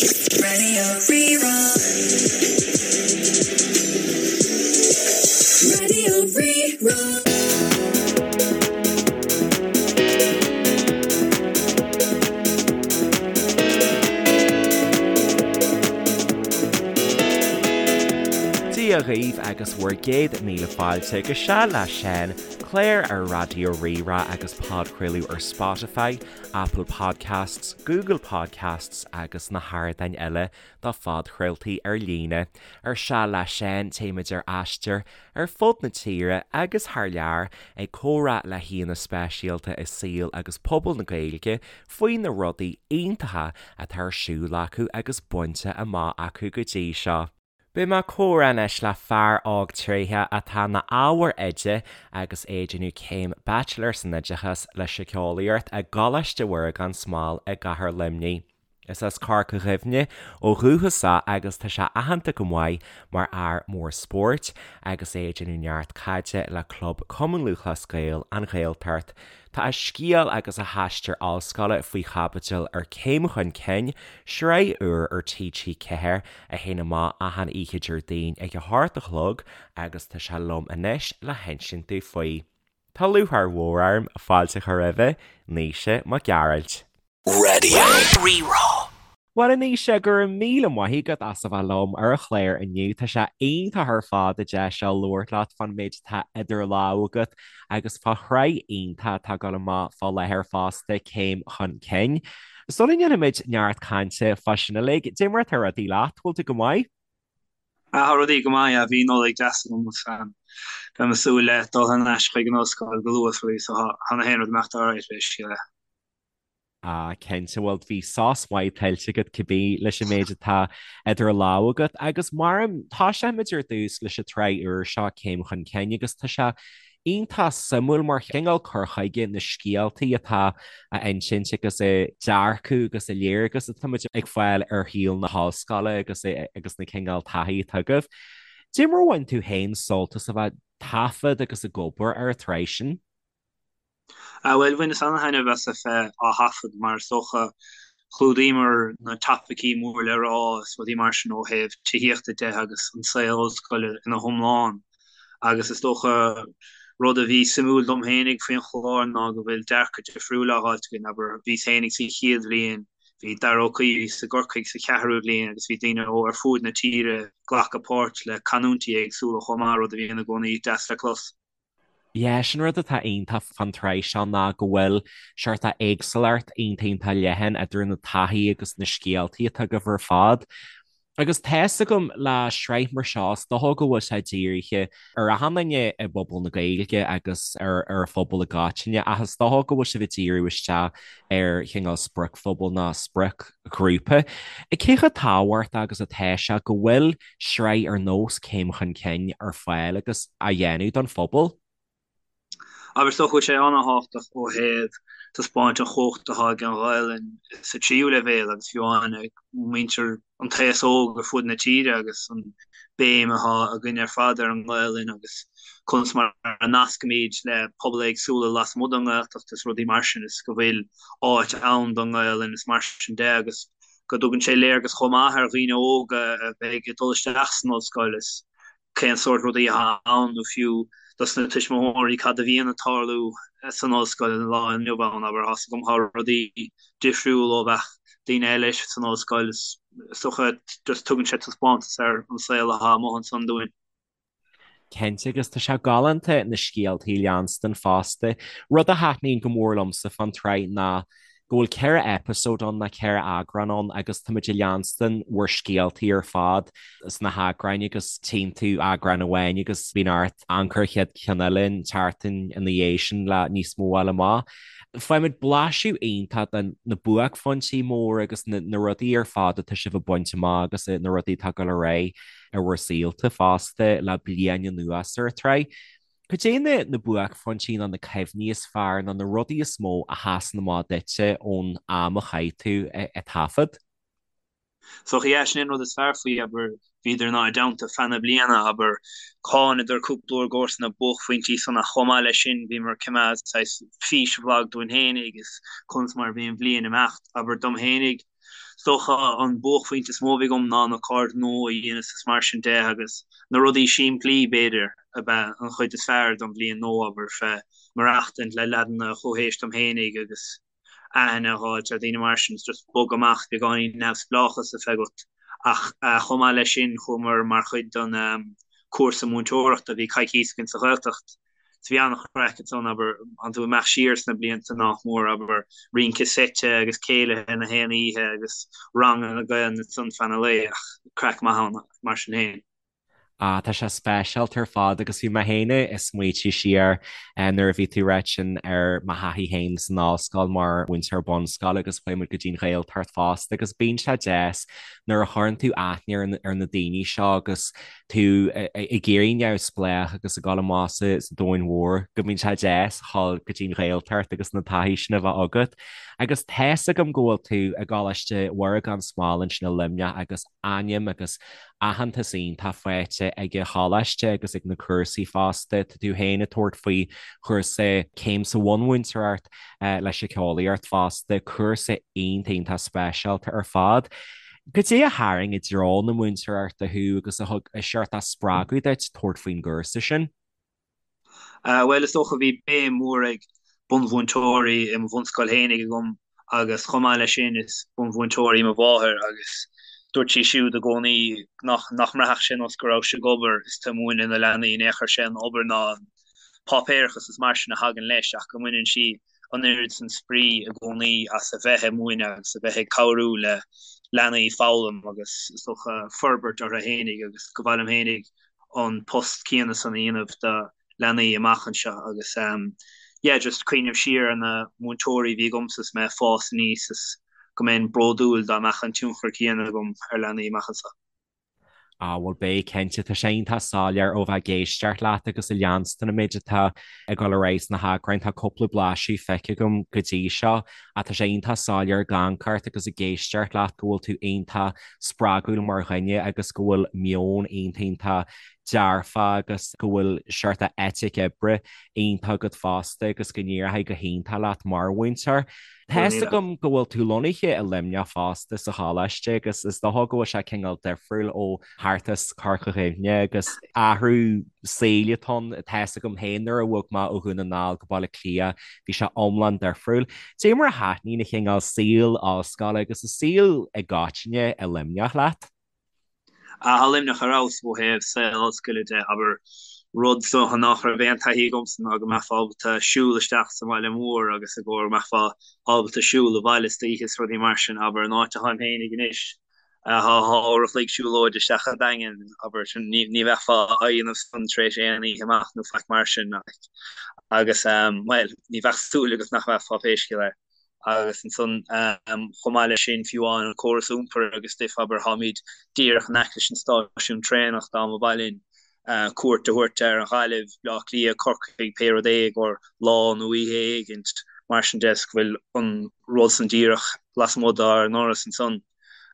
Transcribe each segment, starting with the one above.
Raidió Rí-Rá. Raidió Rí-Rá. Dia dhaoibh agus bhur gcéad míle fáilte go Seal le Seán, clár ar Raidió Rí-Rá agus podchraoladh ar Spotify, Apple Podcasts, Google Podcasts agus na hardáin eile do phodchraoltaí ar líne. Ar Seal le Seán téimid ar aistear ar fud na tíre agus thar lear ag comhrá le haíonna speisialta i saol agus pobal na Gaeilge faoi na rudaí iontacha atá ar siúl acu agus bainte amach acu go dtí seo. Beidh mé ag comhrá anois le fear óg tréitheach atá ina ábhar oide agus é ag déanamh céim Bachelor san Oideachas le Síceolaíocht i gColáiste Mhuire gan Smál i gCathair Luimnigh. Is as Corca Dhuibhne ó dhúchas é agus tá sé aitheanta go maith mar fhear mór spóirt agus é ag déanamh neart caide le club Cumann Lúthchleas Gael, An Ghaeltacht. Tá a scéal agus a haistear ollscoile faoi chaibidil ar Céim Chun Cinn, sraith úr ar TG4 a théann amach achan oíche Déardaoin ag a hocht a chlog agus tá sé liom anois le hinsint dúinn faoi. Tá lúcháir mhór orm fáilte a chur roimhe, Naoise Mac Gearailt. Raidió Rí-Rá. Bhuel a Naoise, go raibh míle maith agat as a bheith liom ar an chlár inniu. Tá sé iontach ar fad an deis seo labhairt leat fán méid atá idir lámha agat agus fá shraith iontach atá ag dul amach fá láthair fosta, Céim Chun Cinn. Sula ndéanfaimid neart cainte fá sin uilig, cad é mar atá rudaí leat, bhfuil tú go maith? Ah, tá rudaí go maith, yeah, bhí Nollaig deas agam agus beidh mé ag súil le dul thar n-ais chuig an ollscoil go luath is so tá na haon rud ag imeacht alright basically. Ah, cinnte, bhuel, bhí sos maith tuillte agat cibé leis an méid atá idir lámha agat agus mar tosóimid ar dtús leis an tsraith úr seo, Céim Chun Cinn, agus tá sé iontach suimiúil mar chineál cur chuige na scéaltaí atá á insint agus an dearcadh agus an léargas atá muid ag fáil ar shaol na hollscoile agus agus na cineál taithí atá agaibh. Cad é mar a bhain tú féin sult as a bheith ag taifead agus ag obair ar an tsraith sin? Ah bhuel, bhaineas ana-thaitneamh as a bheith á thaifead mar is dócha chlúdaíomar na topaicí mór le rá is rudaí mar sin ó thaobh tithíochta de agus an saol ollscoile ina hiomlán agus is dócha rud a bhí suimiúil dom fhéinig faoin chlár ná go bhfuil dearcadh difriúil á fháilt againn, abair, bhíos fhéinig sa chéad bhliain, bhí Dara Ó Caoimh a bhí i gCorcaigh sa cheathrú bhliain agus bhí daoine ó ar fuaid na tíre ag glacadh páirt le canúintí éagsúla chomh maith, rud a bhíonn i gcónaí deas le clos. Yeah, sin rud atá iontach fán tsraith seo ná go bhfuil seort éagsúlacht iontach iontach leathan idir na taithí agus na scéaltaí atá agaibh ar fad. Agus tá's agam le sraith mar seo, is dócha go bhfuil sé dírithe ar achan duine i bpobal na Gaeilge agus ar ar an phobal i gcoitinne ach is dócha go bhfuil sibh ag díriú isteach ar chineál spriocphobal nó spriocghrúpa. Cé chomh tábhachtach agus atá sé go bhfuil sraith ar nós Céim Chun Cinn ar fáil agus á dhéanamh don phobal. Abair, is dócha go bhfuil sé an-thábhachtach ó thaobh taispeáint an chumhacht atá ag an Ghaelainn sa tríú leibhéal agus fiú amháin ag muintir an t-aos óg ar fud na tíre agus an béim atá againn ar fad ar an nGaelainn agus conas mar a nascaimid le pobail éagsúla lasmuigh den nGaeltacht is rudaí mar sin is go bhfuil áit ann don nGaelainn is mar sin de agus go dtugann sé léargas chomh maith ar dhaoine óga a bheidh ag dul isteach san ollscoil is cén sórt rudaí atá ann nó fiú dos na tuismitheoirí cad a bhíonn ag tarlú san ollscoil an lá inniu ann, abair, tá's agam tá rudaí difriúil ó bheadh daoine eile san ollscoil is dócha just tugann sé taispeántas ar an saol atá amuigh ansan dúinn. Cinnte, agus tá sé galánta na scéaltaí a leanstan fosta. Rud a thaitníonn go mór liomsa fán tsraith ná go bhfuil 4 eipeasóid ann, nó 4 eagrán ann, agus táimid ag leanstan bhur scéaltaí ar fad sna heagráin agus tchíonn tú eagrán amháin agus bíonn ort amharc ar an chéad cheann eile an tseachtain ina dhiaidh sin le níos mó a fháil amach. Faighimid blaiseadh iontach de na buaicphointí móra agus na rudaí ar fad atá sibh ag baint amach agus na rudaí atá ag dul ar aghaidh i bhur saolta fosta le bliain anuas ar an tsraith. Cad é na na buaicphointí nó na cuimhní is fearr nó na rudaí is mó a sheasann amach duitse ón am a chaith tú ag taifead? So yeah, sin é an rud is fearr faoi, abair, bhíodar inár dteannta feadh na bliana, abair, thánadar cúpla uair i gcomhair na buaicphointí san ach chomh maith leis sin bhíomar ag coimeád saghas físbhlag dúinn fhéinig is conas mar a bhí an bhliain ag imeacht, abair, dom fhéinig. Is dócha an buaicphointe is mó a bhí agam ná na cairde nua a dhéanamh is mar sin de agus na rudaí simplí, b'fhéidir, ab ea an chuid is fearr don bhliain nua, abair, fé maireachtaint le leaideanna chomh haois dom fhéinig agus aithne a dh'fháilt ar dhaoine mar sin, is just bogadh amach beagáinín neamhspleáchas a bheith agat. Ach chomh maith leis sin chuamar mar chuid den cúrsa múinteoireachta, bhí coicís againn sa Ghaeltacht. So bhí an-chraic ansan, abair, tánn tú ag imeacht siar sna blianta nach mór, abair, rince seite agus céilithe na haon oíche agus ranganna Gaelainne ansan feadh an lae, ach craic maith ann mar sin féin. Ah, tá sé speisialta ar fad agus bhí mé féin ag smaoitiú siar nuair a bhí tú ag ráit sin ar mo thaithí féin san ollscoil mar mhúinteoir bunscoile agus chuaigh muid go dtí an Ghaeltacht fosta agus bíonn sé deas nuair a chuireann tú aithne ar na daoine seo agus tú ag éirí neamhspleách agus ag dul amach sa domhan mhór, go mbíonn sé deas a dhul go dtí an Ghaeltacht agus na taithí sin a bheith agat. Agus tá's agam go bhfuil tú i gColáiste Mhuire gan Smál ansin i Luimneach agus ainm agus aitheantas iontach faighte ag an choláiste agus ag na cúrsaí fosta. Tá tú féin ag tabhairt faoi chúrsa céim sa bhunmhúinteoireacht le síceolaíocht fosta, cúrsa iontach iontach speisialta ar fad. Goidé a tharraing i dtreo na múinteoireachta thú agus a thug seort spreagadh duit tabhairt faoin gcúrsa sin? Bhuel, is dócha bhí béim mhór ag bunmhúinteoirí i mo bhunscoil fhéinig agam agus chomh maith leis sin is bunmhúinteoir í mo mháthair agus dúirt sí siúd i gcónaí nach nach mbraithfeadh sé nós go raibh sí ag obair is tú ag múineadh na leanaí in aon chor sé an obair ná an páipéarachas is mar sin a thagann leis ach go mbaineann sí an oiread san spraoi i gcónaí as a bheith ag múineadh agus a bheith ag cabhrú le leanaí foghlaim agus is dócha forbairt orthu fhéinig agus go mba mhaith liom fhéinig an post céanna san a dhéanamh do leanaí amach anseo agus yeah just cuimhneamh siar ar na múinteoirí a bhí agamsa is mé ag fás aníos is go mbeinn bródúil dá mbeadh an tionchar céanna agam ar leanaí amach anseo. Á, bhuel, beidh, cinnte. Tá sé iontach soiléir ó bheith ag éisteacht leat agus ag leanstan an méid atá ag dul ar aghaidh sna heagráin. Tá cúpla blaiseadh feicthe agam go dtí seo ach tá sé iontach soiléir ag amharc ort agus ag éisteacht leat go bhfuil tú iontach spreagúil mar dhuine agus go bhfuil meon iontach iontach dearfa agus go bhfuil seort eitic oibre iontach agat fosta agus go n-éireoidh go hiontach leat mar mhúinteoir. Tá's agam go bhfuil tú lonnaithe i Luimneach fosta sa choláiste agus is dócha go bhfuil sé cineál difriúil ó thart as Corca Dhuibhne agus athrú saoil atá ann. Tá's agam féin nuair a bhog mé ó Dhún na nGall go Baile Átha Cliath bhí sé iomlán difriúil. Dé mar a thaitníonn an cineál saol ollscoile agus an saol i gcoitinne i Luimneach leat? Tá Luimneach ar fheabhas ó thaobh saol ollscoile de, abair, rud is dócha nach raibh aon taithí agamsa ná go mbeifeá ábalta siúl isteach sa bhaile mór agus i gcomhair go mbeifeá ábalta siúl abhaile istoíche is rudaí mar sin, abair, an áit atáim féinig anois, tá uair a chloig siúlóide isteach an Daingean, abair, sin, ní ní bheifeá á dhéanamh san tar éis aon oíche amach nó faic mar sin, like. Agus, bhuel, ní bheadh súil agat nach mbeifeá pé scéal é. Agus ansan, chomh maith leis sin, fiú amháin an córas iompair agus stuif, abair, táimid díreach in aice leis an stáisiún traenach dá mba mhaith linn cuairt a thabhairt ar an Ghaillimh, Bleá Cliath, Corcaigh, pé rud é i gcomhair lá nó oíche éigint, mar sin de, is go bhfuil an rud san díreach lasmuigh dár ndoras ansan.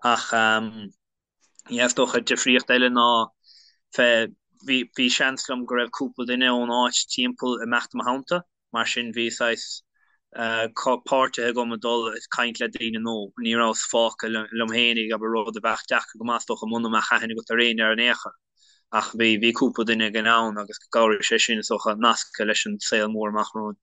Ach. Yeah, is dócha difríocht eile ná fé bhí bhí seans liom go raibh cúpla duine ón áit timpeall ag imeacht i mo theannta, mar sin bhí saghas páirtithe agam ag dul ag caint le daoine nó ní rabhas fágtha liom fhéinig, abair, rud a bheadh deacair go maith is dócha muna mbeadh aithne agat ar éinne ar aon chor. Ach bhí bhí cúpla duine againn ann agus chabhraigh sé sin is dócha nascadh leis an saol mór amach romhainn.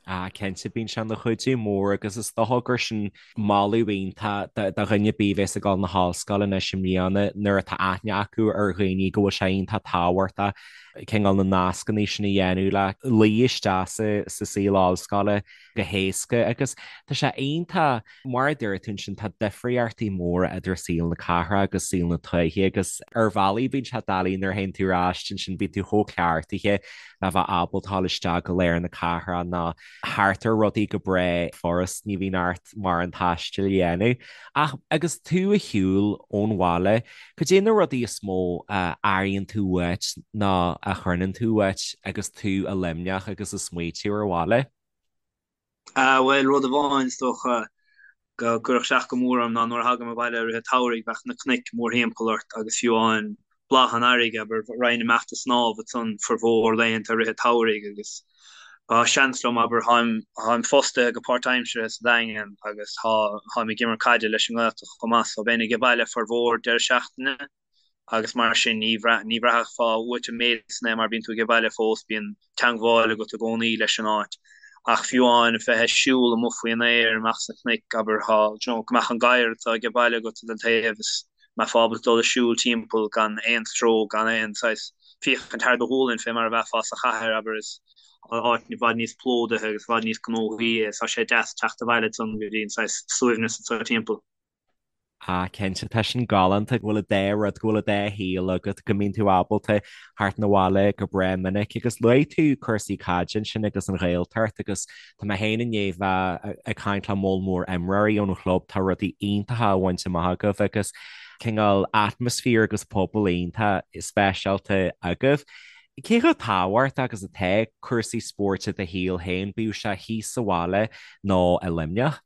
Ah, cinnte, bíonn sé ina chuidiú mór agus is dócha gur sin moladh iontach do dhuine ar bith a bheas ag dul na hollscoile anois i mbliana nuair atá aithne acu ar dhaoine go bhfuil sé iontach tábhachtach cineál na nascanna sin a dhéanamh le luí isteach sa saol ollscoile go héasca agus tá sé iontach Mar a dúirt tú ansin, tá difríochtaí móra idir saol na cathrach agus saol na tuaithe agus ar bhealaí bíonn sé doiligh nuair a théann tú ar ais ansin, bíonn tú chomh cleachtaithe le bheith ábalta dul isteach go lár na cathrach nó thart ar rudaí go breá furast, ní bhíonn ort mórán taistil a dhéanamh. Ach agus tú ar shiúl ón bhaile, cad é na rudaí is mó a airíonn tú uait nó a choinnionn tú uait agus tú i Luimneach agus ag smaoitiú ar an bhaile? Bhuel, rud amháin is dócha go gcuirfeadh isteach go mór orm ná nuair a thagaim abhaile i rith an tsamhraidh bheadh na cnoic mórthimpeall ort agus fiú amháin bláth an earraigh, abair, raghainn amach ag snámh ansan formhór laethanta i rith an tsamhraidh agus. Tá seans liom, abair, táim, táim fostaithe go páirtaimseartha sa Daingean agus tá, táim ag imirt caide leis an nGaeltacht chomh maith so bheinn age baile formhór deireadh seachtaine agus mar sin ní bhraith, ní bhraithfeá uait an méid san é mar bíonn tú age baile fós, bíonn teangmháil agat i gcónaí leis an áit. Ach fiú amháin bheith ag siúl amuigh faoin aer, amach sna cnoic, abair, tá, you know, go mbeadh an gadhar atá age baile agat den taobh is mbeifeá ábalta dul ag siúl timpeall gan aon stró, gan aon saghas féachaint thar do ghualainn fé mar a bheifeá sa chathair, abair, is áit i bhfad níos plódaithe agus i bhfad níos gnóthaí é, tá sé deas teacht abhaile ansan go dtí an saghas suaimhneas atá timpeall. Ah, cinnte, tá sin galánta go bhfuil an dá rud, go bhfuil an dá shaol agat, go mbíonn tú ábalta theacht 'na bhaile go breá minic agus luaigh tú cúrsaí caide ansin agus an Ghaeltacht agus Tá mé féin i ndiaidh bheith ag caint le moll mór imreoirí ón chlub, tá rudaí iontacha á bhaint amach agaibh agus cineál atmaisféar agus pobal iontach speisialta agaibh. Cé chomh tábhachtach agus atá cúrsaí spóirt i do shaol féin, bíodh sé thíos sa bhaile nó i Luimneach?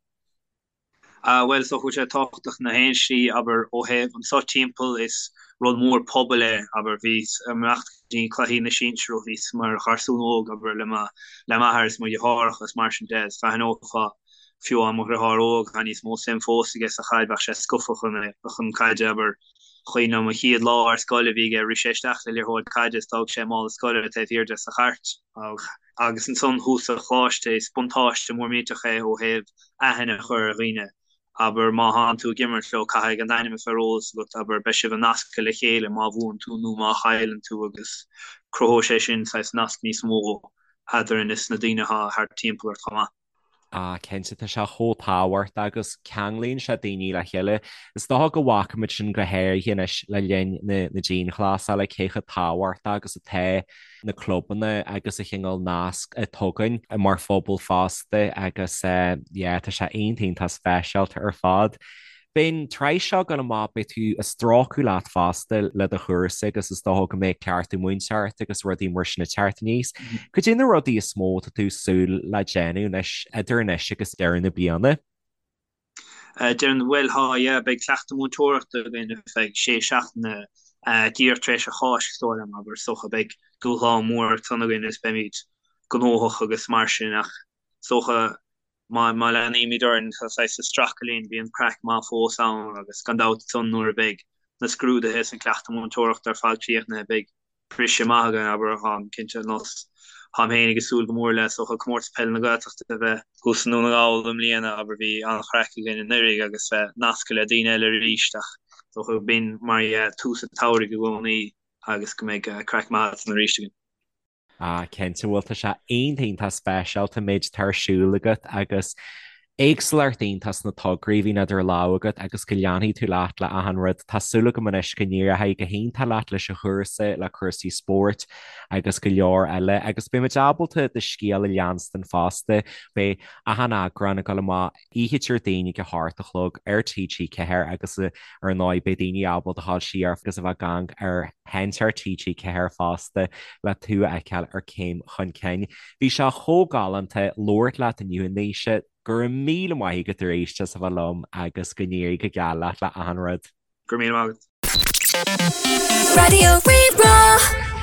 Bhuel, is dócha go bhfuil sé tábhachtach na haon slí, abair, ó thaobh anso timpeall, is rud mór pobail é, abair, bhíos ag imeacht go dtí cluichí na sinsear ó bhíos mar gharsún óg, abair, le mo, le m'athair is mo dheartháireacha is mar sin de, is d'aithneofá, fiú amháin mo dheartháir óg, tá níos mó suim fós aige sa chaid, bheadh sé scaofa chun, chun caide, abair, cuimhin liom an chéad lá ar scoil a bhí aige, rith sé isteach le liathróid caide is d'fhág sé mála scoile taobh thiar de sa chairt. Agus ansan thuas sa choláiste, is buntáiste mór millteach é ó thaobh aithne a chur ar dhaoine. Abair, má thánn tú ag imirt leo, caithfidh a n-ainm a bheith ar eolas agat, abair, beidh sibh nasctha le chéile má bhuann tú nó má chailleann tú agus cruthóidh sé sin saghas nasc níos mó eadrainn is na daoine atá thart timpeall ort chomh maith. Ah, cinnte, tá sé chomh tábhachtach agus ceanglaíonn sé daoine le chéile. Is dócha go bhfaca muid sin go háirithe anois le linn na dianghlasála, cé chomh tábhachtach agus atá na clubanna agus an cineál nasc a tugann mar phobal fosta agus yeah, tá sé iontach iontach speisialta ar fad. Beidh an tsraith seo ag dul amach, beidh tú ag strácadh leat fosta le do chúrsa agus is dócha go mbeidh cleachtadh múinteoireachta agus rudaí mar sin ag teacht aníos. Cad é na rudaí is mó atá tú ag súil le déanamh anois, idir anois agus deireadh na bliana? Deireadh na, bhuel, tá, yeah, beidh cleachtadh múinteoireachta againn ar feadh sé seachtaine díreach tar éis an Cháisc, is dóigh liom, abair, is dócha beidh dúshlán mór ansan againn is beimid gnóthach agus mar sin ach is dócha Má leanaímid orainn saghas ag stracadh linn, bíonn craic maith fós ann agus gan dabht ansan nuair a bheidh na scrúduithe is an cleachtadh múinteoireachta ar fad críochnaithe beidh briseadh maith againn, abair, táim cinnte, ar nós táim féin ag súil go mór le is dócha Comórtas Peile na Gaeltachta a bheith thuas i nDún na nGall i mbliana, abair, bhí an-chraic againn anuraidh agus bheith nasctha le daoine eile arís ach is dócha b'in mar dhea tús an tsamhraidh i gcónaí agus go mbeidh craic maith ansan arís againn. Ah, cinnte, bhuel, tá sé iontach iontach speisialta an méid atá ar siúl agat agus éagsúlacht iontach sna tograí a bhíonn idir lámha agat agus go leanfaidh tú leat le achan rud. Tá súil agam anois go n-éireoidh go hiontach leat leis an chúrsa, le cúrsaí spóirt agus go leor eile agus beidh muid ábalta do scéal a leanstan fosta. Beidh achan eagrán ag dul amach oíche Déardaoin ag a hocht a chlog ar TG4 agus ar ndóigh beidh daoine ábalta a ghabháil siar agus a bheith ag amharc ar sheinnteoir TG4 fosta le tú a fheiceáil ar Céim Chun Cinn. Bhí sé chomh galánta labhairt leat inniu a Naoise, go raibh míle maith agat arís as a bheith liom agus go n-éirí go geal leat le achan rud. Go raibh míle maith agat. Raidió Rí-Rá.